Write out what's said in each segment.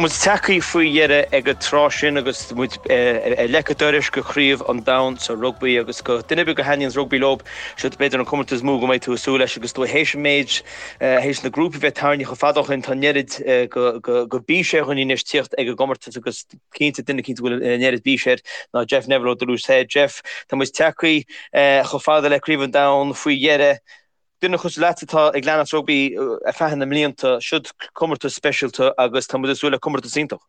muid tagtha faoi dheireadh ag an tráth sin agus muid ar leic an dorais go Craobh an Domhain sa rugbaí agus go duine ar bith go thaitníonns rugbaí leo, seo b'fhéidir an comórtas is mó go mbeidh tú ag súil leis agus tú théis an méid, théis na grúpaí bheith tarraingthe chomh fada ó shin, tá an oiread go bís ar dhaoine anois tíocht ag an gcomórtas agus cinnte duine cinnte go bhfuil an oiread bís air ná Jeff Neville ó Duluth Head. Jeff, tá muid tagtha chomh fada le Craobh an Domhain faoi dheireadh. Duine cosúil leat atá ag leanacht rugbaí ar feadh na mblianta, siod comórtas speisialta agus tá muid ag súil le comórtas iontach.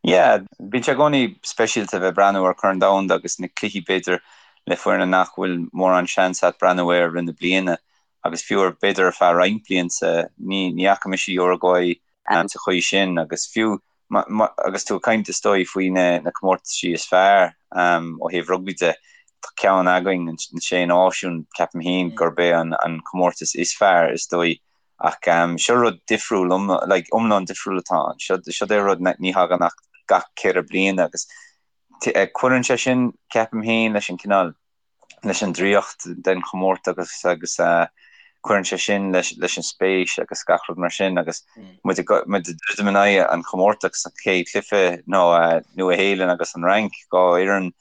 Yeah, bíonn sé i gcónaí speisialta bheith breathnú ar Chorn Domhanda agus na cluichí b'fhéidir le foirne nach bhfuil mórán seans a't breathnú air i rith na bliana agus fiú ar b'fhéidir ar feadh roinnt blianta ní ní fhaca mise Uruguay sa chaoi sin agus fiú agus tú ag caint is dóigh faoi na comórtaisí is fearr ó thaobh rugbaí de, tá ceann againn, na Sé Náisiún, ceapaim féin gurb é an comórtas is fearr is dóigh ach seo rud difriúil, like iomlán difriúil atá ann. Seo é rud ní thagann ach gach ceithre bliana agus cuireann sé sin, ceapaim féin, leis an cineál leis an draíocht den chomórtas agus cuireann sé sin leis leis an spéis agus gach rud mar sin agus muid ag muid ag druidim in aghaidh an chomórtais sa chéad chluiche nó Nua Shéalainn agus an Fhrainc, dhá fhoireann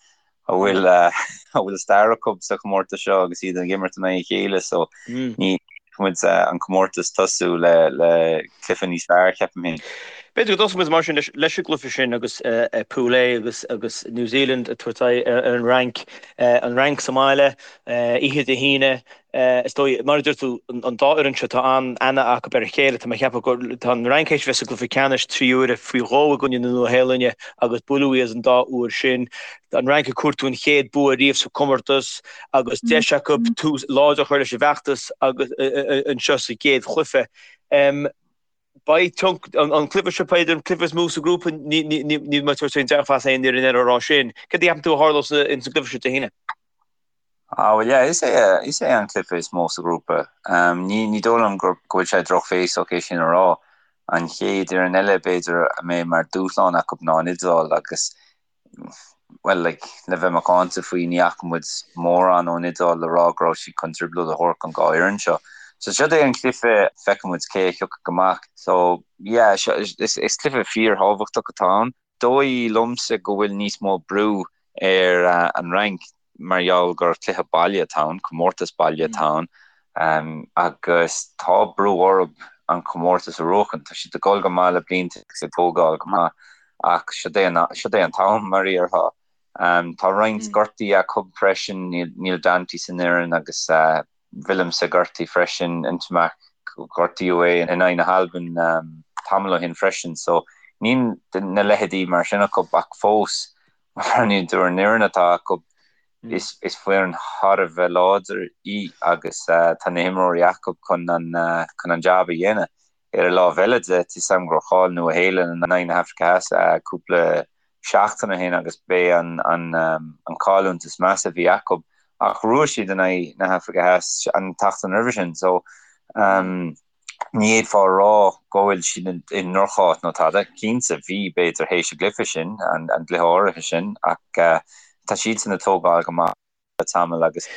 a bhfuil a bhfuil stair acu sa chomórtas seo agus iad ag imirt in aghaidh a chéile so ní muid an comórtas tosú le le cluiche níos fearr ceapaim féin. B'fhéidir go dtosóidh muid mar sin leis an gcluiche sin agus Pool A agus agus New Zealand ag tabhairt aghaidh ar an Fhrainc, an Fhrainc sa mbaile, oíche Dé hAoine. Is dóigh, mar a deir tú, an dá fhoireann seo tá an-aithne acu ar a chéile. Tá mé ag ceapadh go tá an Fhrainc théis bheith sa gcluiche ceannais 3 huaire faoi dhó i gcoinne na Nua-Shéalainne agus buaileadh iad an dá uair sin. An Fhrainc ag cuartú an chéad bua riamh sa chomórtas agus deis acu tús láidir a chur leis an bhfeachtas agus anseo sa gcéad chluiche. Beidh tionchar an cluiche seo b'fhéidir an cluiche is mó sa ghrúpa, níl mé ag tabhairt aon dearfas aon ní ar an rá sin. Céard a cheapann tú a tharlós ins an gcluiche seo Dé hAoine? Ah bhuel yeah, is é is é an cluiche is mó sa ghrúpa. Ní ní dóigh liom go go bhfuil sé drochbhéasach é sin a rá. An chéad fhoireann eile b'fhéidir a mbeidh mar dúshlán acu ná an Iodáil agus bhuel, like, le bheith macánta faoi, ní fhaca muid mórán ón Iodáil le rá go raibh siad chun trioblóid a thabhairt don dhá fhoireann seo. So siod é an cluiche, feicfidh muid cé a thiocfaidh amach. So, yeah, seo, is, is cluiche fíorthábhachtach atá ann. Dóigh liomsa go bhfuil níos mó brú ar an Fhrainc mar gheall gur cluiche baile atá ann, comórtas baile atá ann, agus tá brú orthu an comórtas a bhuachan. Tá siad ag dul go maith le blianta agus ag tógáil go maith ach siod é an, siod é an t-am, mar a déarfá. Tá roinnt gortaí acu freisin, níl Danty san fhoireann agus Willemse gortaithe freisin, Ntamack, gortaíodh é in aghaidh na hAlban tamall ó shin freisin so níl na leithéidí mar sin acu ach fós Má bhreathnaíonn tú ar an fhoireann atá acu, is foireann thar a bheith láidir í agus tá na himreoirí acu chun an jab a dhéanamh. Ar an lámh eile de, tá 'fhios a'm gur chaill Nua Shéalainn in aghaidh na hAfraice Theas cúpla seachtain ó shin agus b'é an chailliúint is measa a bhí acu ach bhuaigh siad in aghaidh na hAfraice Theas an tseachtain roimhe sin. So. Ní fhéadfá a rá go bhfuil siad i ndroch-áit nó tada. Cinnte, bhí, b'fhéidir, théis an gcluiche sin, an gcluiche áirithe sin, ach tá siadsan ag tógáil go maith le tamall agus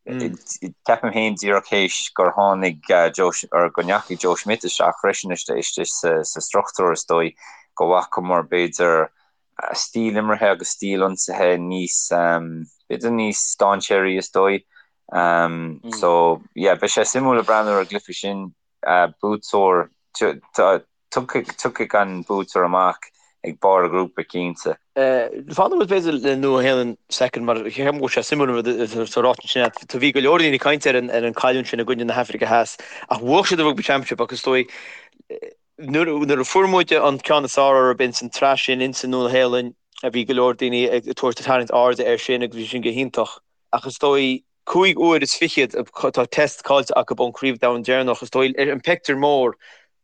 ceapaim féin díreach théis gur tháinig Joe, or go ndeachaigh Joe Schmidt isteach freisin istigh sa struchtúr is dóigh go bhfacamar b'fhéidir stíl imeartha agus stíl ionsaithe níos, b'fhéidir níos dainséaraí is dóigh. So, yeah, beidh sé suimiúil ag breathnú ar an gcluiche sin. Buaiteoir, tiocfaidh an buaiteoir amach ag barr an ghrúpa, cinnte. Fanfaidh muid b'fhéidir le Nua Shéalainn soicind mar ceapaim go bhfuil sé suimiúil an rud atá ráite ansin agat. Bhí go leor daoine ag caint ar an cailliúint sin i gcoinne na hAfraice Theas ach bhuaigh siad an Rugby Championship agus is dóigh nuair a fuair muid an ceann is fearr orthu ins an tsraith sin ins an Nua Shéalainn bhí go leor daoine ag tabhairt tarraingt airde air sin agus bhí sin go hiontach. Ach is dóigh, cúig uair is fichead atá test caillte acu ón Craobh Domhain deireanach, is dóigh, ar an pictiúr mór,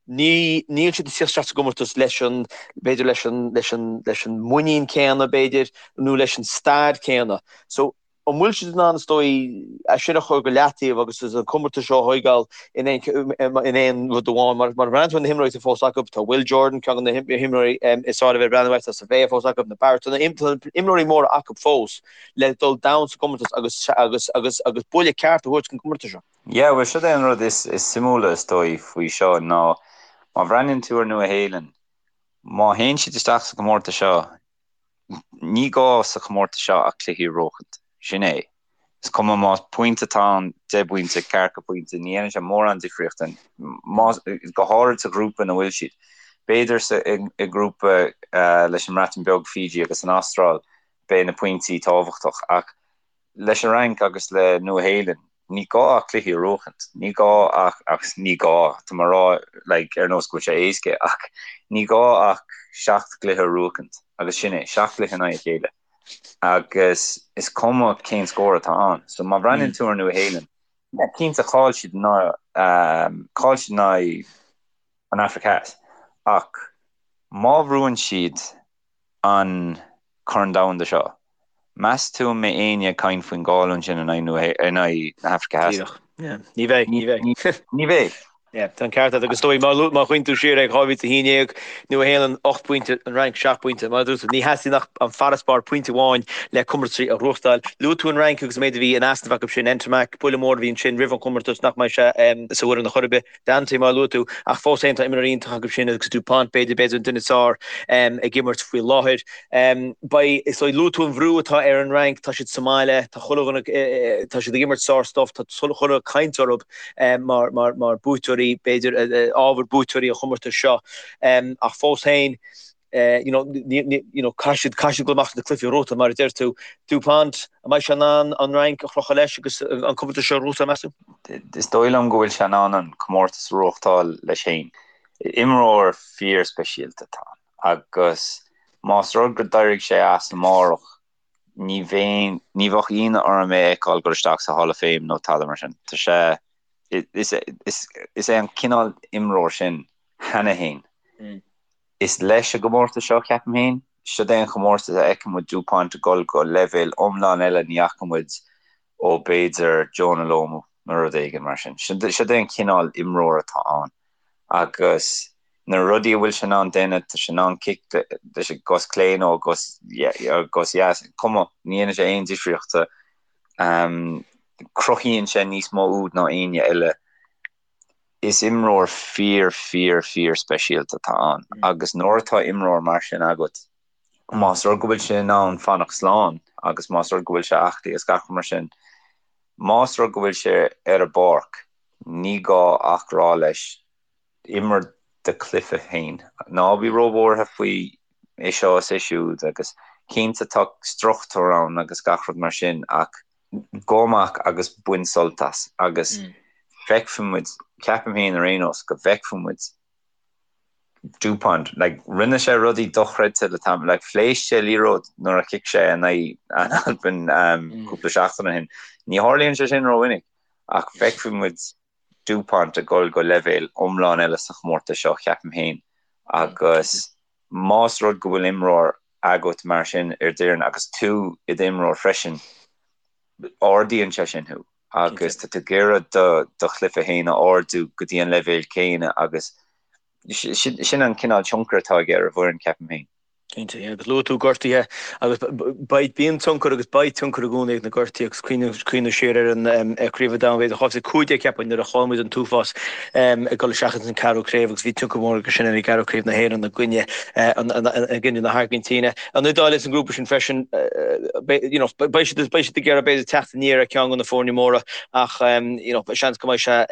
ní, níl siad ag tíocht isteach sa gcomórtas leis an, b'fhéidir leis an, leis an, leis an muinín céanna, b'fhéidir, nó leis an stair céanna. So, an bhfuil siad in ann, is dóigh, é sin a chur go leataobh agus an comórtas seo a thóigeáil in aon, in aon rud amháin? Mar, mar breathnaíonn tú ar na himreoirí atá fós acu, tá Will Jordan, ceann de na himreoirí is fearr a bheith ag breathnú air, tá Savea fós acu, na Barrett, tá na imreoirí móra acu fós. le dul domhain sa gcomórtas agus agus agus agus buille ceart a thabhairt don gcomórtas seo. Yeah, bhuel, siod é an rud is is suimiúla is dóigh faoi seo ná má bhreathnaíonn tú ar Nua Shéalainn, Má théann siad isteach sa chomórtas seo, ní gá sa chomórtas seo ach cluichí a bhuachaint. Sin é. Is cuma más pointe atá ann, 10 bpointe, ceathracha pointe, ní dhéanann sé mórán difríochta, más, go háirid sa ghrúpa ina bhfuil siad. B'fhéidir sa, i ngrúpa leis an mBreatain Bheag, Fiji agus an Astráil, beidh na pointí tábhachtach ach leis an Fhrainc agus le Nua-Shéalainn, ní gá ach cluichí a bhuachaint. Ní gá ach, agus ní gá, tá mé ag rá like ar nós go bhfuil sé éasca, ach ní gá ach seacht gcluiche a bhuachaint agus sin é, seacht gcluiche in aghaidh a chéile. Agus is cuma cén scór atá ann. So má bhreathnaíonn tú ar Nua-Shéalainn, yeah, cinnte chaill siad in aghaidh, chaill siad in aghaidh an Afraic Theas, ach má bhuann siad an Corn Domhanda seo, meas tú an mbeidh éinne ag caint faoin gcailliúint sin in aghaidh na hAfraice Theas? Díreach. Yeah. Ní bheidh, ní bheidh. Ní bheidh. Yeah, tá an ceart agat agus is dóigh má má chuimhníonn tú siar ag 2011, Nua-Shéalainn 8 bpointe, an Fhrainc 7 bpointe. Mar a dúirt tú, ní theastaíonn ach an farasbarr pointe amháin le comórtaisí a ghnóthachtáil. Luaigh tú an Fhrainc agus an méid a bhí in easnamh acu sin, Ntamack, buille mór a bhí ansin roimh an chomórtas nach mbeidh sé sa bhfoireann a chor ar bith. Danty, mar a luaigh tú, ach fós féin tá imreoirí iontach acu sin agus Dupont, b'fhéidir, b'fhéidir an duine is fearr ag imirt faoi láthair. Beidh, is dóigh, luaigh tú an bhrú atá ar an Fhrainc, tá siad sa mbaile, tá chuile dhuine, tá siad ag imirt sár-stuif, tá chuile dhuine ag caint orthu mar, mar, mar buaiteoirí, b'fhéidir, ábhar buaiteoirí an chomórtais seo. Ach fós féin, you know, you know, caithfidh siad, caithfidh siad dul amach sna cluichí a ghnóthachtáil, mar a deir tú. Dupont, an mbeidh sé in ann an Fhrainc a chrochadh leis agus an comórtas seo a ghnóthachtáil, meas tú? Is dóigh liom go bhfuil sé in ann an comórtas a ghnóthachtáil leis féin. Imreoir fíor-speisialta atá ann agus más rud go d'éirigh sé as amárach, ní bheinn, ní bheadh ionadh orm é a fheiceáil dul isteach sa Hall of Fame nó tada mar sin. Tá sé, is, is, is é an cineál imreoir sin cheana féin. Is leis an gcomórtas seo, ceapaim féin. Siod é an chomórtas a fheiceann muid Dupont ag dul go leibhéal iomlán eile ní fhaca muid ó b'fhéidir Jonah Lomu nó rud éigin mar sin. Siod é an cineál imreoir atá ann agus na rudaí a bhfuil sé in ann déanamh, tá sé in ann cic leis an gcos clé nó an gcos dheas, cuma, ní dhéanann sé aon difríochta. Cruthaíonn sé níos mó úd ná éinne eile. Is imreoir fíor, fíor, fíor speisialta atá ann agus nuair atá imreoir mar sin agat, más rud go bhfuil sé in ann fanacht slán agus más rud go bhfuil sé aclaí agus gach rud mar sin, más rud go bhfuil sé ar an bpáirc, ní gá ach rá leis, imir do chluiche féin. Ná bí róbhuartha faoi é seo is é siúd agus cinnte tá struchtúr ann agus gach rud mar sin ach gabh amach agus bain sult as agus feicfidh muid, ceapaim féin ar aon nós, go bhfeicfidh muid Dupont, like, rinne sé rudaí dochreidte le tamall, like, phléasc sé liathróid nuair a chic sé in aghaidh an Albain cúpla seachtain ó shin. Ní tharlaíonn sé sin rómhinic ach feicfidh muid Dupont ag dul go leibhéal iomlán eile sa chomórtas seo, ceapaim féin, agus más rud go bhfuil imreoir agat mar sin ar d'fhoireann agus tú i d'imreoir freisin, ardaíonn sé sin thú agus tá tú ag iarraidh do chluiche féin a ardú go dtí an leibhéal céanna agus sin an cineál tionchair atá aige ar an bhfoireann, ceapaim féin. Cinnte, yeah, agus luaigh tú gortuithe agus beidh, bíonn tionchar agus beidh tionchar i gcónaí ag na gortuithe agus cuimhneamh siar ar an Craobh an Domhain, b'fhéidir 2015 ceapaim nuair a chaill muid an t-uafás ag dul isteach ins an ceathrú craobh agus bhí tionchar mór aige sin ar an gceathrú craobh na hÉireann i gcoinne i gcoinne na hAirgintíne. An Iodáil ins an ngrúpa sin freisin, you know, beidh siad beidh siad ag iarraidh b'fhéidir teacht aniar ar ceann de na foirne móra ach you know, seans go mbeidh sé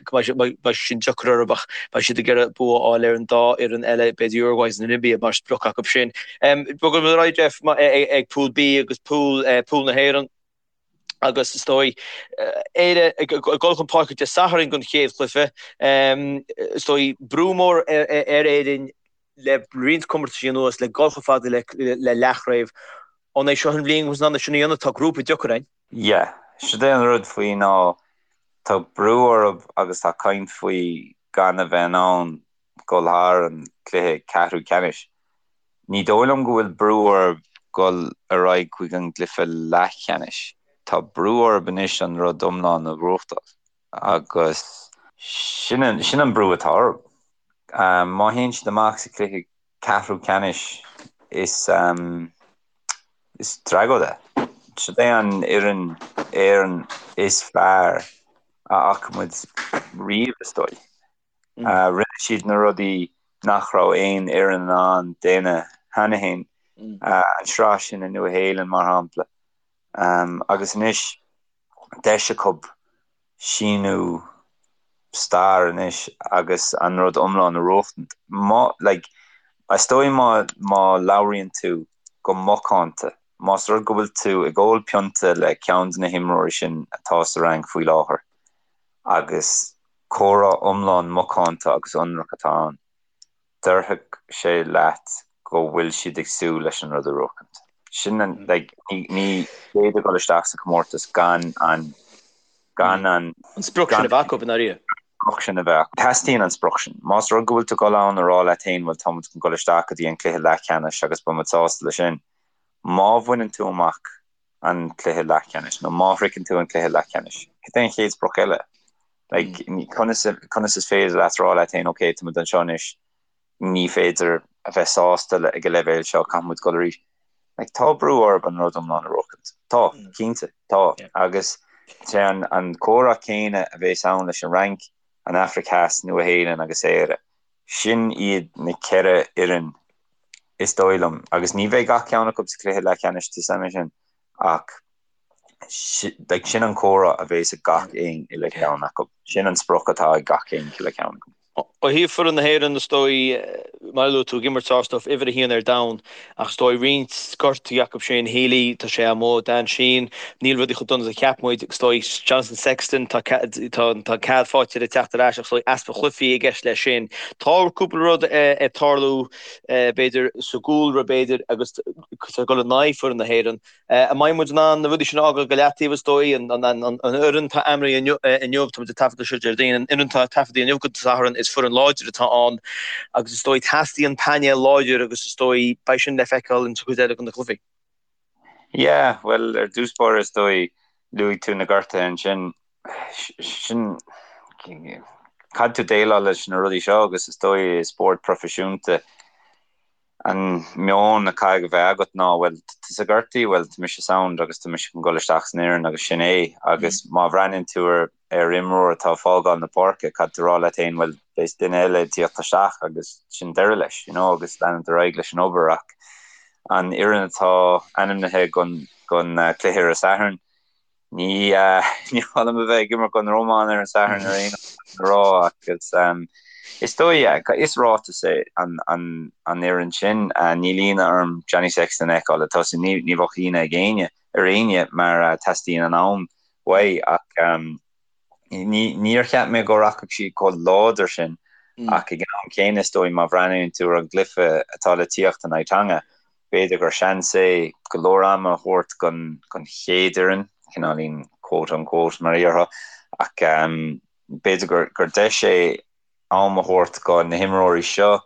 go mbeidh sé sin deacair orthu ach beidh siad ag iarraidh bua a fháil ar an dá fhoireann eile, b'fhéidir Uruguay agus Namibia mar sprioc acu sin. Bogfaidh muid ar aghaidh, Jeff, ag Pool B agus Pool Pool na hÉireann agus is dóigh Éire ag dul chun páirce Dé Sathairn don chéad chluiche. Is dóigh brú mór ar Éirinn le roinnt comórtaisí anuas le dul chomh fada le leathchraobh. An é seo an bhliain go mbeidh sin a dhéanamh? Tá grúpa deacair againn. Yeah, siod é an rud faoi ná tá brú orthu agus tá caint faoi gan a bheith in ann dul thar an cluiche ceathrú ceannais. Ní dóigh liom go bhfuil brú orthu dul ar aghaidh chuig an gcluiche leathcheannais. Tá brú orthu anois an rud iomlán a ghnóthachtáil agus sin an brú atá orthu. Má théann siad amach sa chluiche ceathrú ceannais is is tragóid é. Siod é an fhoireann Éireann is fearr a fhaca muid riamh is dóigh. Rinne siad na rudaí. nach raibh aon fhoireann in ann déanamh cheana féin, an sraith sin i Nua-Shéalainn mar shampla. Agus anois deis acu síniú stair anois agus an rud iomlán a bhuachtaint. Má, like, is dóigh má, má labhraíonn tú go macánta, más rud go bhfuil tú ag ól pionta le ceann de na himreoirí sin atá sa Fhrainc faoi láthair agus comhrá iomlán macánta agus ionraic atá ann, déarfadh sé leat go bhfuil siad ag súil leis an rud a bhuachaint. Sin an, like, ní, ní féidir dul isteach sa chomórtas gan an, gan an. An sprioc sin a bheith acu, i ndáiríre. Sprioc sin a bheith acu. Teastaíonn an sprioc sin. Más rud go bhfuil tú ag dul ann a rá leat féin, bhuel, tá muid chun dul isteach go dtí an cluiche leathcheannais agus beidh muid sásta leis sin. Má bhaineann tú amach an cluiche leathcheannais nó má shroicheann tú an cluiche leathcheannais, cad é an chéad sprioc eile? Like, conas, conas is féidir leat rá leat féin, ok, tá muid anseo anois, ní féidir a bheith sásta le, ag an leibhéal seo, caithfidh muid dul arís. Like, tá brú orthu an rud iomlán a bhuachaint. Tá, cinnte, tá. Agus sé an, an comhrá céanna a bhéas ann leis an Fhrainc, an Afraic Theas, Nua-Shéalainn agus Éire. Sin iad na ceithre fhoireann is dóigh liom, agus ní bheidh gach ceann acu sa chluiche leathcheannais, tá 'fhios a'm sin, ach like sin an comhrá a bhéas ag gach aon uile cheann acu. Sin an sprioc atá ag gach aon uile cheann acu. Ó thaobh foireann na hÉireann, is dóigh, mar a luaigh tú, ag imirt sár-stuif, uimhir a haon ar domhan, ach is dóigh roinnt gortuithe acu sin, Healy, tá sé amuigh, Dan Sheehan, níl rudaí chomh dona is a cheap muid, is dóigh Jonathan Sexton, tá tá cead faighte aige teacht ar ais ach is dóigh easpa chluichí i gceist leis sin. Tá cúpla rud ag tarlú, b'fhéidir, sa gcúlra, b'fhéidir, agus ag dul in aghaidh foireann na hÉireann. An mbeidh muid in ann na rudaí sin a fhágáil go leataobh, is dóigh? An fhoireann atá ainmnithe inniu, tá muid ag taifeadadh seo Déardaoin, an fhoireann atá taifeadta inniu go Satharn, is foireann láidir atá ann agus is dóigh teastaíonn painéal láidir agus is dóigh beidh sin le feiceáil in sa chuid eile de na cluichí. Yeah, bhuel, ar dtús báire is dóigh, luaigh tú na gortuithe ansin, sin, caithfidh tú déileáil leis na rudaí seo agus is dóigh i spórt proifisiúnta, An meon a caithfidh a bheith agat ná, bhuel, tusa gortaithe, bhuel, tá mise sound agus tá mise chun dul isteach san fhoireann agus sin é. Agus má bhreathnaíonn tú ar ar imreoir atá ag fágáil na páirce, caithfidh tú rá leat féin, bhuel, beidh duine eile ag tíocht isteach agus sin deireadh leis, you know, agus leanúint ar aghaidh leis an obair. Ach an fhoireann atá ainmnithe don don cluiche ar an Satharn, Ní ní maith liom a bheith ag imirt don Rómáin ar an Satharn ar aon a rá agus is dóigh yeah, is ráiteas é an an an fhoireann sin. Níl ionadh orm Johnny Sexton a fheiceáil ag tosú. Ní ní bheadh ionadh ag éinne ar éinne mar teastaíonn an am uaidh ach Ní, níor cheap mé go rachadh siad chomh láidir sin ach ag an am céanna is dóigh má bhreathnaíonn tú ar an gcluiche atá le tíocht in aghaidh Tonga, b'fhéidir gur seans é go leor ama a thabhairt don, don chéad fhoireann, cineáilín quote unquote mar a déarfá, ach b'fhéidir gur, gur deis é am a thabhairt do na himreoirí seo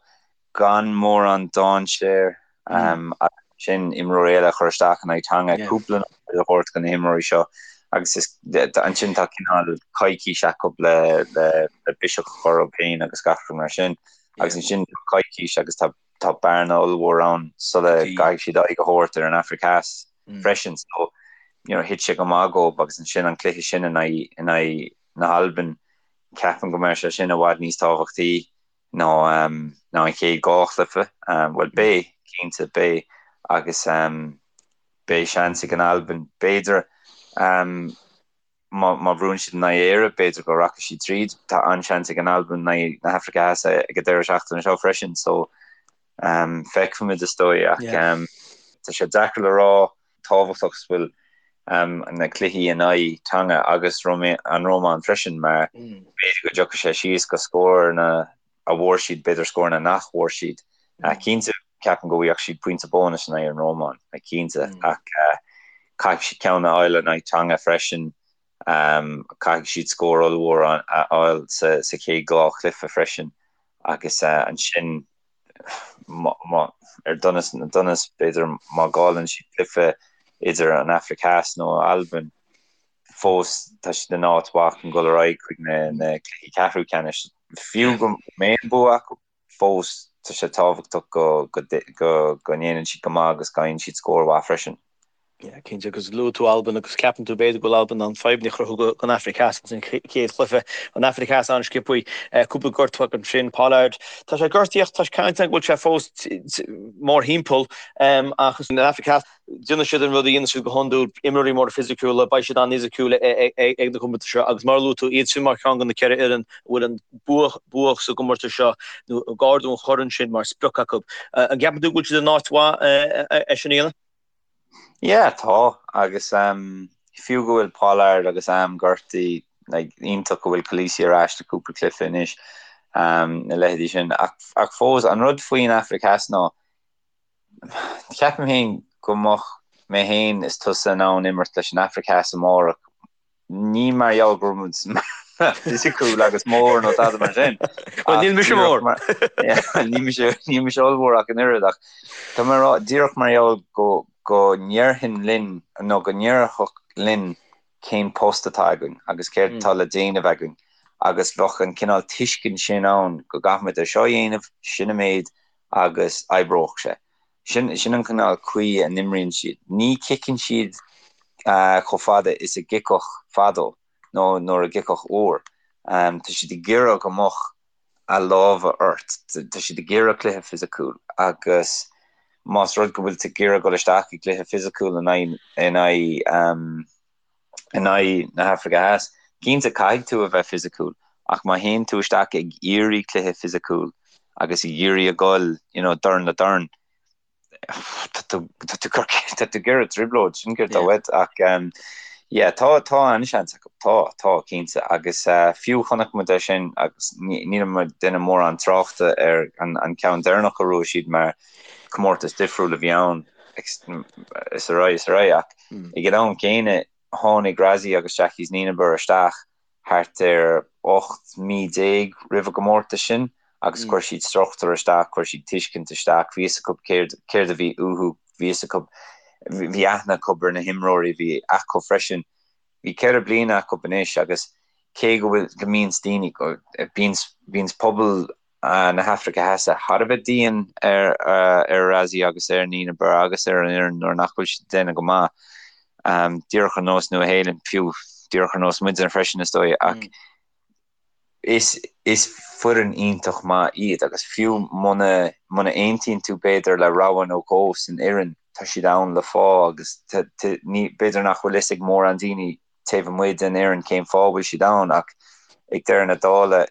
gan mórán dainséir agus ansin imreoirí eile a chur isteach in aghaidh Tonga, cúpla nóiméad a thabhairt do na himreoirí seo agus is ansin tá cineál coicís acu le le biseach a chur orthu féin agus gach rud mar sin agus ansin tá coicís agus tá tá bearna ollmhór ann sula gcaithfidh siad aghaidh a thabhairt ar an Afraic Theas freisin so you know thit sé go maith dóibh agus ansin an cluiche sin in aghaidh in aghaidh na hAlban ceapaim go mbeidh sé sin i bhfad níos tábhachtaí ná ná an chéad dhá chluiche. Bhuel, beidh, cinnte, beidh agus beidh seans ag an Albain, b'fhéidir, má má bhuann siad in aghaidh Éire, b'fhéidir go rachaidh siad tríd. Tá an-seans ag an Albain in aghaidh na hAfraice Theas ag an deireadh seachtaine seo freisin, so feicfimid is dóigh ach tá sé deacair le rá tábhachtach is bhfuil na cluichí in aghaidh Tonga agus an Rómáin freisin mar b'fhéidir go dtiocfaidh sé síos go scóranna a bhfuair siad, b'fhéidir scóranna nach bhfuair siad. Cinnte, ceapaim go bhfaigheadh siad pointe bónais in aghaidh an Rómáin, cinnte, ach caithfidh siad ceann a fháil in aghaidh Tonga freisin, caithfidh siad scór ollmhór a fháil sa chéad dhá chluiche freisin agus ansin ar donas na ndonas, b'fhéidir, má chailleann siad cluiche idir an Afraic Theas nó Albain, fós tá siad in áit mhaith chun dul ar aghaidh chuig na cluichí ceathrú ceannais. Fiú go mbeidh an bua acu, fós tá sé tábhachtach go go ndéanann siad go maith agus go bhfaigheann siad scór mhaith freisin. Yeah, cinnte, agus luaigh tú Albain agus ceapann tú b'fhéidir go bhfuil Albain in ann fadhbanna a chruthú don Afraic Theas ins an chéad chluiche. An Afraic Theas an-sciobthaí, cúpla gortú acu ansin, Pollard, tá sé gortaithe ach tá caint ann go bhfuil sé fós mórthimpeall ach an Afraic Theas, déanfaidh siad an rud a dhéanann siad go hiondúil, imreoirí móra fisiciúla, beidh siad an-fhisiciúil ag na comórtais seo agus mar a luaigh tú, iad sin mar cheann de na ceithre fhoireann a bhfuil an bua sa gcomórtas seo nó ag ardú an choirn sin mar sprioc acu. An gceapann tú go bhfuil siad in áit mhaith é sin a dhéanamh? Yeah, tá, agus fiú go bhfuil Pollard agus Am gortaithe, like, iontach go bhfuil Kolisi ar ais do cúpla cluiche anois, na leithéidí sin, ach, ach fós, an rud faoin Afraic Theas ná, ceapaim féin go mbeadh mé féin is tusa in ann imirt leis an Afraic Theas amárach, Ní mar gheall go raibh muid fisiciúil agus mór nó tada mar sin. Bhuel, níl mise mór. Níl mise, níl mise ollmhór ach an oiread ach tá mé ag rá díreach mar gheall go go ndéarfainn linn nó go ndéarfadh linn cén post atá againn agus céard atá le déanamh againn agus bheadh an cineál tuiscint sin ann go gcaithfimid é seo a dhéanamh, sin an méid agus oibreoidh sé. Sin sin an cineál caoi a n-imríonn siad. Ní chiceann siad chomh fada is a gciceadh fadó nó nuair a gciceadh uair. Tá siad ag iarraidh go mbeadh a lámha ort. Tá siad ag iarraidh cluiche fisiciúil agus más rud go bhfuil tú ag iarraidh dul isteach i gcluiche fisiciúil in aghaidh in aghaidh in aghaidh na hAfraice Theas. Cinnte, caithfidh tú a bheith fisiciúil, ach má théann tú isteach ag iarraidh cluiche fisiciúil agus ag iarraidh a dhul, you know, dorn le dorn, tá tú, tá tú, tá tú ag iarraidh trioblóid, sin céard atá uait. Ach, yeah, tá, tá an-seans acu, tá, tá, cinnte. Agus fiú chonaic muid é sin agus níl muid ag déanamh mórán tráchta ar an, an ceann deireanach a bhuaigh siad mar comórtas difriúil a bhí ann is ar aghaidh, is ar aghaidh ach Ag an am céanna, tháinig Rassie agus Jacques Nienaber isteach thart ar 18 mí roimh an gcomórtas sin agus chuir siad struchtúr isteach, chuir siad tuiscint isteach, bhí fhios acu céard, céard a bhí uathu, bhí fhios acu, bhí aithne acu ar na himreoirí a bhí acu freisin. Bhí ceithre bliana acu anois agus cé go bhfuil, go mbíonns daoine, bíonns, bíonns pobal na hAfraice Theas thar a bheith dian ar ar Rassie agus ar Nienaber agus ar an fhoireann nuair nach bhfuil siad ag déanamh go maith. Díreach ar nós Nua Shéalainn, fiú díreach ar nós muidne freisin is dóigh, ach is is foireann iontach maith iad agus fiú muna muna aontaíonn tú b'fhéidir le rogha nó dhó san fhoireann, tá siad ann le fáth agus ní b'fhéidir nach bhfuil fhios ag mórán daoine taobh amuigh den fhoireann cén fáth a bhfuil siad ann ach ag deireadh na dála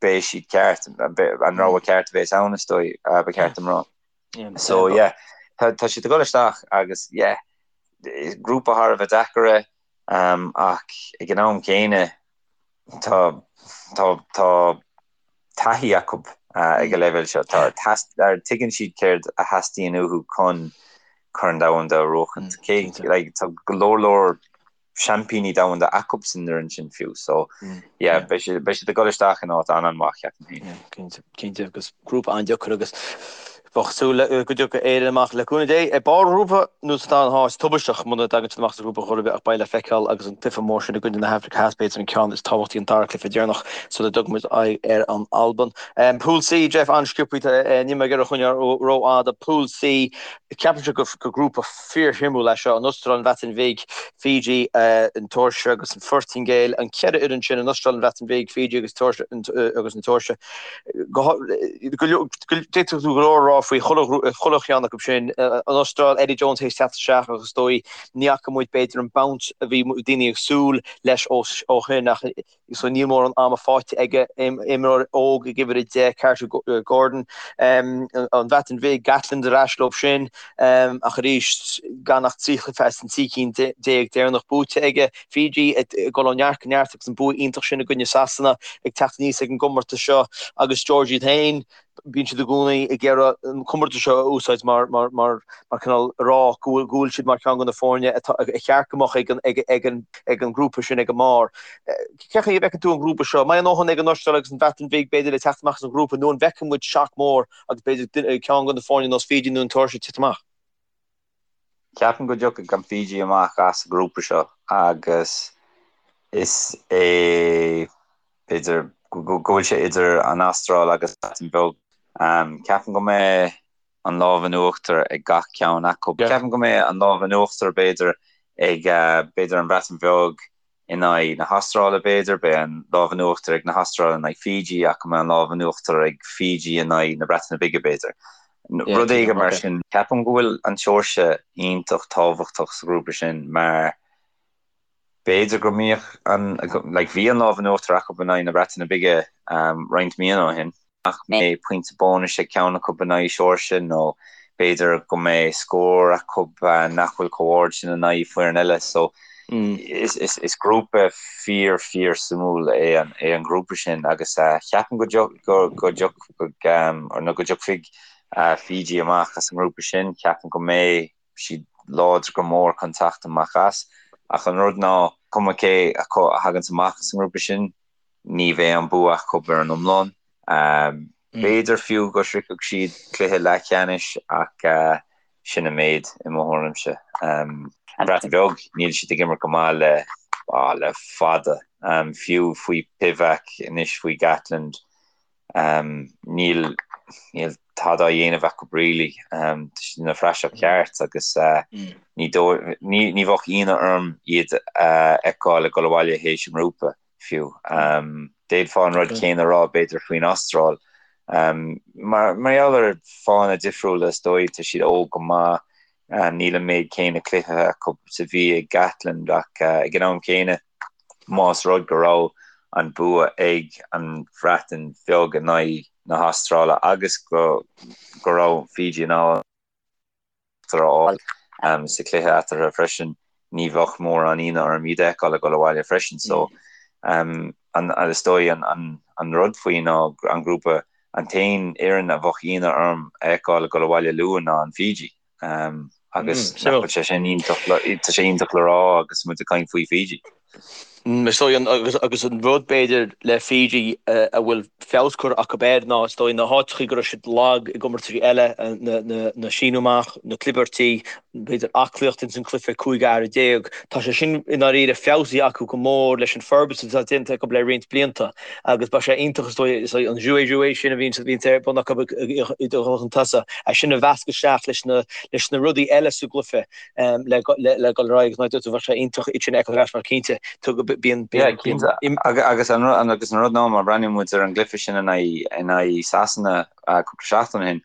beidh siad ceart, an rogha ceart a bheas ann is dóigh, ba cheart dom rá. So yeah, tá tá siad ag dul isteach agus yeah, grúpa thar a bheith deacair é ach ag an am céanna tá tá tá taithí acu ag an leibhéal seo. Tá tuigeann siad céard a theastaíonn uathu chun Corn Domhanda a bhuachaint. Cé like tá go leor leor seaimpíní domhanda acu san fhoireann sin fiú so yeah beidh siad beidh siad ag dul isteach in áit an-an-mhaith ceapaim féin. Yeah cinnte cinnte agus grúpa an-deacair agus bheadh súil le go dtiocfaidh Éire amach le cúnamh Dé ag barr an ghrúpa nó sa dara háit tubaisteach muna dtagann siad amach as an ghrúpa chor ar bith ach beidh le feiceáil agus an cluiche mór sin i gcoinne na hAfraice Theas b'fhéidir an ceann is tábhachtaí an dara cluiche deireanach sula dtugann muid aghaidh ar an Albain. Pool C Jeff an-sciobtha níl mé ag iarraidh coinneáil rófhada Pool C ceapaimse gur grúpa Fíorshuimiúil é seo, an Astráil, an Bhreatain Bhig, Fiji, an tSeoirsia agus an Phortaingéil. An cheithre fhoireann sin, an Astráil, an Bhreatain Bhig, Fiji agus an tSeoirsia. D'fhéadfadh tú go leor a rá faoi chuile cheann acu sin. An Astráil, Eddie Jones théis teacht isteach agus is dóigh ní fhaca muid b'fhéidir an bounce a bhí daoine ag súil leis ó shin ach so níl mórán ama faighte aige, imreoir óg ag uimhir 10, Carter Gordon, an Bhreatain Bhig, Gatland ar ais leo sin, ach arís gan ach 3 chluiche as an 13 cinn deireanach buaite aige. Fiji ag dul ó neart go neart agus an bua iontach sin i gcoinne Sasana ag teacht aníos ag an gcomórtas seo agus Georgia iad féin, bíonn siad i gcónaí ag iarraidh an comórtas seo a úsáid mar mar mar mar cineál a rá go bhfuil go bhfuil siad mar cheann de na foirne atá a cheart go mbeadh ag an ag ag an ag an ngrúpa sin ag an mbarr. Cén chaoi a bhfeiceann tú an grúpa seo? An mbeidh a ndóthain ag an Astráil agus an Bhreatain Bhig b'fhéidir le teacht amach as an ghrúpa nó an bhfeicfidh muid shock mór agus b'fhéidir ceann de na foirne nós Fiji nó an tSeoirsia ag titim amach? Ceapaim go dtiocfaidh an Fiji amach as an ngrúpa seo agus is é b'fhéidir go bhfuil sé idir an Astráil agus an Bhreatain Bheag. Ceapaim go mbeidh. an lámh in uachtar ag gach ceann acu. Ceapaim go mbeidh an lámh in uachtar b'fhéidir ag b'fhéidir an Bhreatain Bheag in aghaidh na hAstráile b'fhéidir, beidh an lámh in uachtar ag na hAstráile in aghaidh Fiji ach go mbeidh an lámh in uachtar ag Fiji in aghaidh na Breataine Bige b'fhéidir. Rud éigin mar sin. Ceapaim go bhfuil an tSeoirsia iontach tábhachtach sa ghrúpa sin mar b'fhéidir go mbeadh an, like bhí an lámh in uachtar acu in aghaidh na Breataine Bige roinnt míonna ó shin. nach mbeidh pointe bónais ag ceann acu in aghaidh Seoirsia nó b'fhéidir go mbeidh scór acu nach bhfuil chomh ard sin in aghaidh foireann eile. So is grúpa fíor fíor suimiúil é an é an grúpa sin agus ceapaim go go dtiocfaidh nó go dtiocfaidh Fiji amach as an ngrúpa sin, ceapaim go mbeidh siad láidir go mór chun teacht amach as. Ach an rud ná, cuma cé acu a thaganns amach as an ngrúpa sin, ní bheidh an bua acu ar an iomlán. B'fhéidir fiú go sroichfeadh siad cluiche leathcheannais ach sin an méid i mo thuairimse. An Bhreatain Bheag, níl siad ag imirt go maith le le fada. Fiú faoi Pivac, anois faoi Gatland, níl níl tada á dhéanamh acu really. Tá siad ina phraiseach cheart agus ní ní ní bheadh ionadh orm iad a fheiceáil ag dul abhaile théis an ngrúpa. fiú. D'fhéadfá an rud céanna a rá b'fhéidir faoin Astráil. Mar gheall ar fáthanna difriúla is dóigh, tá siad óg go maith, níl an méid céanna cluichí acu is a bhí ag Gatland ach ag an am céanna más rud go raibh an bua ag an Bhreatain Bheag in aghaidh na hAstráile agus go raibh Fiji in ann uachtar a fháil sa chluiche eatarthu freisin. Ní bheadh mórán ionadh orm iad a fheiceáil ag dul abhaile freisin. So an is dóigh an rud faoi ná an grúpa, an t-aon fhoireann a bheadh ionadh orm a fheiceáil ag dul abhaile luath ná an Fiji. Agus nach bhfuil sé sin iontach, tá sé iontach le rá agus muid ag caint faoi Fiji. Is dóigh agus an rud b'fhéidir le Fiji a bhfuil feabhas curtha acu air ná is dóigh na háiteachaí go raibh siad lag i gcomórtaisí eile, na síneadh amach, na clibirtí, b'fhéidir aclaíocht ins an cluiche 15 fhear, tá sé sin i ndáiríre feabhsaithe acu go mór leis an forbairt atá déanta acu le roinnt blianta agus beidh sé iontach is dóigh is dóigh an jouer-jouer sin a bhíonn bhíonn ar bun acu i dul chun tosaigh, é sin a mheascadh isteach leis na leis na rudaí eile sa gcluiche. le dul ar aghaidh agus mar a dúirt tú bheadh sé iontach iad sin a fheiceáil ar ais mar cinnte bíonn Yeah, cinnte. Agus an agus an rud ná má bhreathnaíonn muid ar an gcluiche sin in aghaidh in aghaidh Sasana cúpla seachtain ó shin,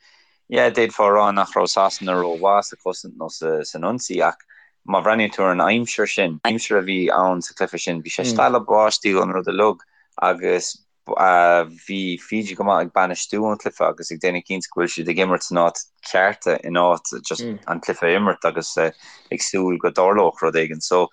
yeah, d'fhéadfá a rá nach raibh Sasana rómhaith sa chosaint nó sa san ionsaí ach má bhreathnaíonn tú ar an aimsir sin, aimsir a bhí ann sa chluiche sin, bhí sé stealladh báistí an rud uilig agus Bhí Fiji go maith ag bainistiú an chluiche agus ag déanamh cinnte go bhfuil siad ag imirt san áit cheart in áit just an cluiche a imirt agus ag súil go dtarlódh rud éigin. So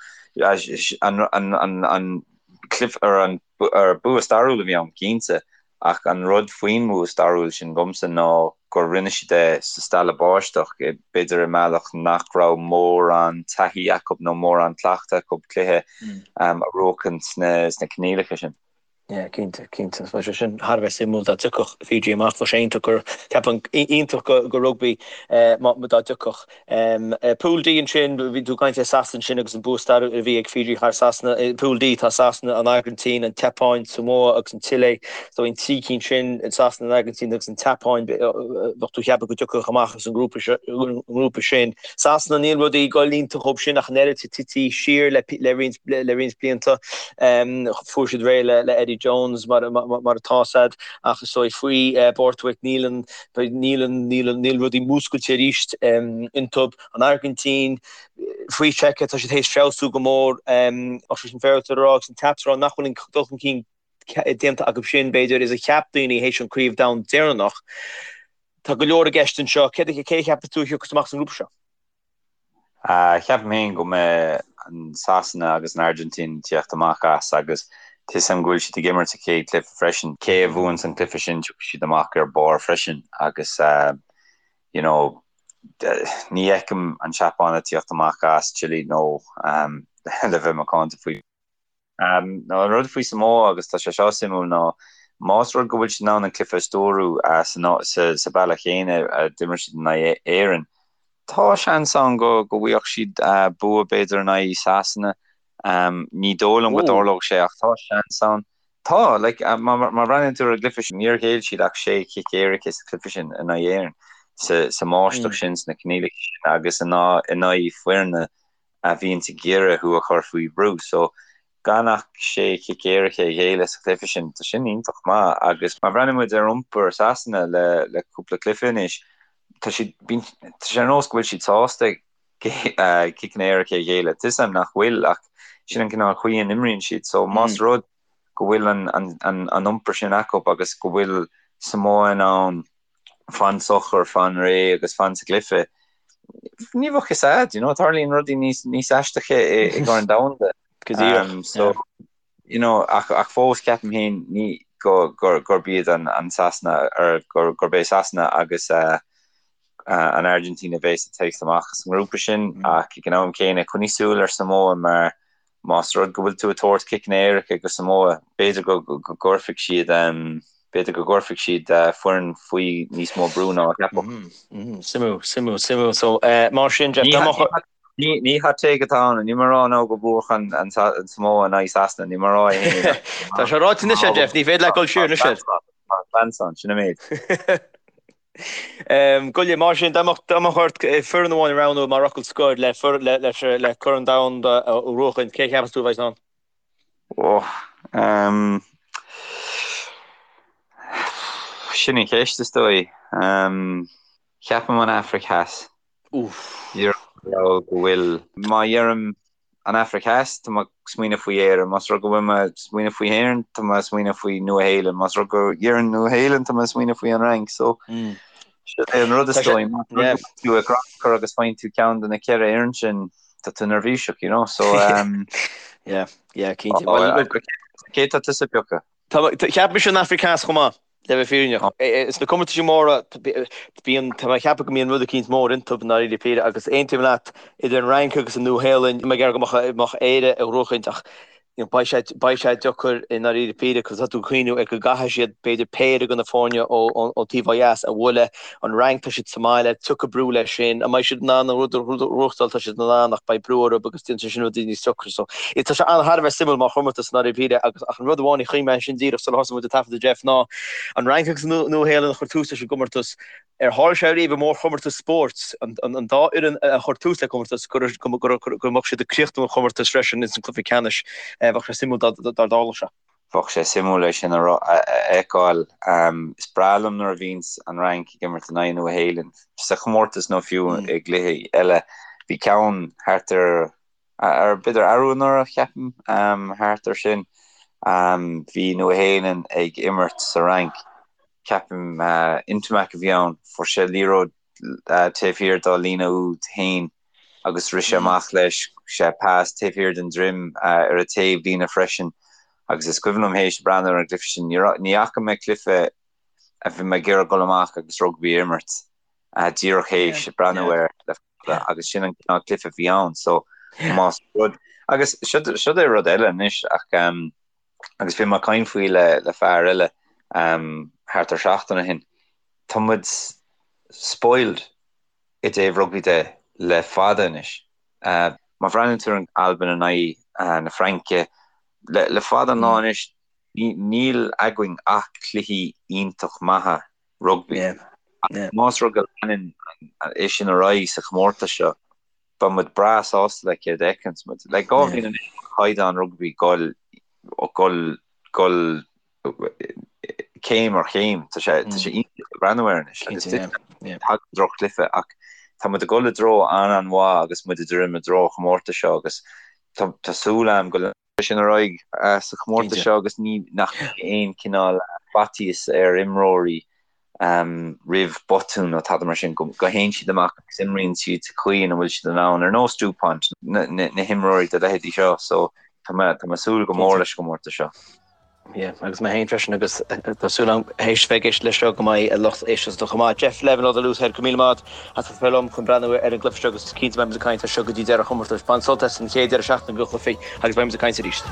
an an cluiche ar an ar bua stairiúil a bhí ann cinnte ach an rud faoin mbua stairiúil sin dhomsa ná gur rinne siad é sa stealladh báisteach, b'fhéidir i mbealach nach raibh mórán taithí acu nó mórán cleachtadh acu cluiche a bhuachan sna coinníollacha sin. Yeah, cinnte, cinnte. Bheadh sé sin thar a bheith suimiúil dá dtiocfadh Fiji amach. Bheadh sé iontach go, ceapaim, iontach go, go rugbaí má, dá dtiocfadh. Pool D ansin, bhí tú ag caint ar Sasana ansin agus an bua stairiúil a bhí ag Fiji thar Sasana. I Pool D tá Sasana, an Airgintín, an tSeapáin, Samoa agus an tSile. So an trí cinn sin, Sasana, an Airgintín agus an tSeapáin, bheadh tú ag ceapadh go dtiocfadh amach as an ngrúpa, an ngrúpa sin. Sasana, níl rudaí ag dul iontach dhóibh sin ach an oiread, tití siar le, le roinnt, le roinnt blianta. Fuair siad réidh le Eddie Jones mar atá a fhios a'd ach is dóigh faoi Borthwick níl an níl an níl an níl rudaí múscailte arís iontub. An Airgintín faoi Cheika tá siad théis feabhsú go mór ach sé sin féaráilte a rá agus an ceart a rá nach bhfuil an dul chun cinn déanta acu sin b'fhéidir is a cheap daoine théis an craobh domhain deireanach. Tá go leor i gceist anseo. Cé a cheapas tú a thiocfas amach as an ngrúpa seo? Ceapaim féin go mbeidh an Sasana agus an Airgintín ag tíocht amach as agus tá 'fhios a'm go bhfuil siad ag imirt sa chéad chluiche freisin. Cé a bhuanns an cluiche sin tiocfaidh siad amach ar barr freisin agus you know ní fheicim an tSeapáin ag tíocht amach as Chile nó le bheith macánta faoi. An rud faoi Samoa, agus tá sé seo suimiúil, ná más rud go bhfuil siad in ann an cluiche a stiúradh sa bealach chéanna a d'imir siad in aghaidh Éireann, tá seans ann go bhfaigheadh siad bua b'fhéidir in aghaidh Sasana. Ní dóigh liom go dtarlódh sé ach tá seans ann. Tá, like, má bhreathnaíonn tú ar an gcluiche sin, níor ghéill siad ach sé chic éirice sa chluiche sin in aghaidh Éireann. sa mbáisteach sin, sna coinníollacha sin agus in aghaidh foirne a bhíonns ag iarraidh thú a chur faoi bhrú. So, gan ach sé chic éirice a ghéilleadh sa chluiche sin, tá sin iontach maith agus má bhreathnaíonn muid ar iompar Sasana le le cúpla cluiche anois, tá siad, bíonn, tá sé ar nós go bhfuil siad sásta ciceanna éirice a ghéilleadh. Tá 'fhios a'm nach bhfuil ach sin an cineál chaoi a n-imríonn siad. So más rud go bhfuil an an an an iompar sin acu agus go bhfuil Samoa in ann fan socair, fan réidh agus fan sa gcluiche, ní bheadh fhios a'd, you know, tarlaíonn rudaí níos níos aisteacha i i gCorn Domhanda. Go díreach, Um, so, yeah. you know, ach, ach fós ceapaim féin ní go, gur, gurb iad an, an Sasana, or gur, gurb é Sasana agus uh, uh, an Argentina a bheas ag teacht amach as an ngrúpa sin, Mm. ach ag an am céanna coinnigh súil ar Samoa mar Más rud go bhfuil tú ag tabhairt ciceanna éirice go Samoa, b'fhéidir go gcuirfidh siad b'fhéidir go gcuirfidh siad foireann faoi níos mó brú ná a cheapfadh. Suimiúil, suimiúil, suimiúil. So, mar sin, Jeff, dá mbeadh. Ní hot take atá ann, níl mé ag rá now go mbuafadh an Samoa in aghaidh Sasana, níl mé ag rá é féin. Tá sé ráite anois, Jeff, ní féidir leat dul siar anois air. Tá seans ann, sin an méid. Go leor, mar sin, dá mbeadh ort foireann amháin a roghnú mar fhocal scoir le le Corn Domhanda a bhuachaint, cé a cheapas tú a bheidh ann? Ó, sin an cheist is dóigh. Ceapaim an Afraic Theas. Úff. Go bhfuil, má dheirim An Afraic Theas, tá mé ag smaoineamh faoi Éirinn. Más rud go bhfuil mé ag smaoineamh faoi Éirinn, tá mé ag smaoineamh faoi Nua-Shéalainn. Más rud go ndeirim Nua-Shéalainn, tá mé ag smaoineamh faoi an Fhrainc. So, sin é an rud is dóigh. Más rud go bhfuil tú ag crannchur agus faigheann tú ceann de na ceithre fhoireann sin, tá tú neirbhíseach, you know. So, um, Yeah, yeah, cinnte. Well, look, cé tá tusa ag piocadh? Tá, cheap mise an Afraic Theas chomh maith. Le bheith fírinneach, sna comórtaisí móra, bíonn, tá mé ag ceapadh go mbíonn rud eicínt mór iontu i ndáiríre píre agus aontaím leat, idir an Fhrainc agus an Nua-Shéalainn, tá mé ag iarraidh go mbeadh Éire á ghnóchaint ach beidh sé, beidh sé deacair i ndáiríre píre cos tá tú ag cuimhniú ar go gcaithfidh siad b'fhéidir péire de na foirne ón taobh ó dheas a bhualadh, an Fhrainc tá siad sa mbaile, tiocfaidh brú leis sin, an mbeidh siad in ann an rud a ghnóthachtáil, tá siad in ann ach beidh brú orthu agus déanfaidh sé sin rudaí níos deacra so tá sé an-thar a bheith suimiúil mar chomórtas i ndáiríre píre agus ach an rud amháin a chuimhnigh mé ansin díreach sular thosaigh muid ag taifeadadh Jeff ná an Fhrainc agus an Nua-Shéalainn a chuir tús leis an gcomórtas. Ar tharla sé riamh i mórchomórtas spóirt an dá fhoireann a chuir tús le comórtas go mbeadh siad ag críochnú an chomórtais freisin ins an cluiche ceannais? Bheadh sé suimiúil dá dtarlódh sé. Bheadh sé suimiúil é sin a fheiceáil. Is breá liom nuair a bhíonns an Fhrainc ag imirt in aghaidh Nua-Shéalainn sa chomórtas nó fiú i gcluichí eile. Bhí ceann thart ar ar b'fhéidir arú anuraidh, ceapaim, thart ar sin. Bhí Nua-Shéalainn ag imirt sa Fhrainc, ceapaim Ntamack a bhí ann, fuair sé liathróid taobh thiar dá líne úd féin agus rith sé amach leis, sé pas taobh thiar den droim ar a taobh líne freisin agus is cuimhin liom théis breathnú ar an gcluiche sin, ní fhaca mé cluiche a bhí mé ag iarraidh dul amach agus rugbaí a imirt díreach théis breathnú air le fada agus sin an cineál cluiche a bhí ann so más rud agus siod é rud eile anois ach agus bhí mé ag caint faoi le le fear eile thart ar seachtain ó shin tá muid spoiled i dtaobh rugbaí de le fada anois. Má bhreathnaíonn tú ar an Albain in aghaidh na Fraince le le fada an lá anois níl againn ach cluichí iontach maithe rugbaí. Más rud go leanann é sin ar aghaidh sa chomórtas seo, beidh muid breá sásta le céard a fheiceanns muid. Le 2 bhliain anois tá caighdeán rugbaí ag dul dul céim ar chéim. Tá sé tá sé iontach le breathnú air anois agus tagann droch-chluiche ach tá muid ag dul i dtreo an-an-mhaith agus muid ag druidim i dtreo an chomórtais seo agus tá súil agam go sin ar aghaidh sa chomórtas seo agus ní nach mbeidh aon chineál faitíos ar imreoirí roimh botún nó tada mar sin, go théann siad amach agus imríonn siad sa chaoi ina bhfuil siad in ann, ar nós Dupont, na himreoirí de leithéidí seo. So tá mé tá mé ag súil go mór leis an gcomórtas seo. Yeah, agus mé féin freisin agus tá súil agam théis bheith ag éisteacht leis seo go mbeidh a lucht éisteachta chomh maith. Jeff Levin ó The Loosehead, go raibh míle maith agat as a bheith liom chun breathnú ar an gcluiche seo agus cinnte beidh muid ag caint air seo go dtí deireadh an chomórtais. Bain sult as an chéad deireadh seachtaine de chluichí agus beidh muid ag caint arís.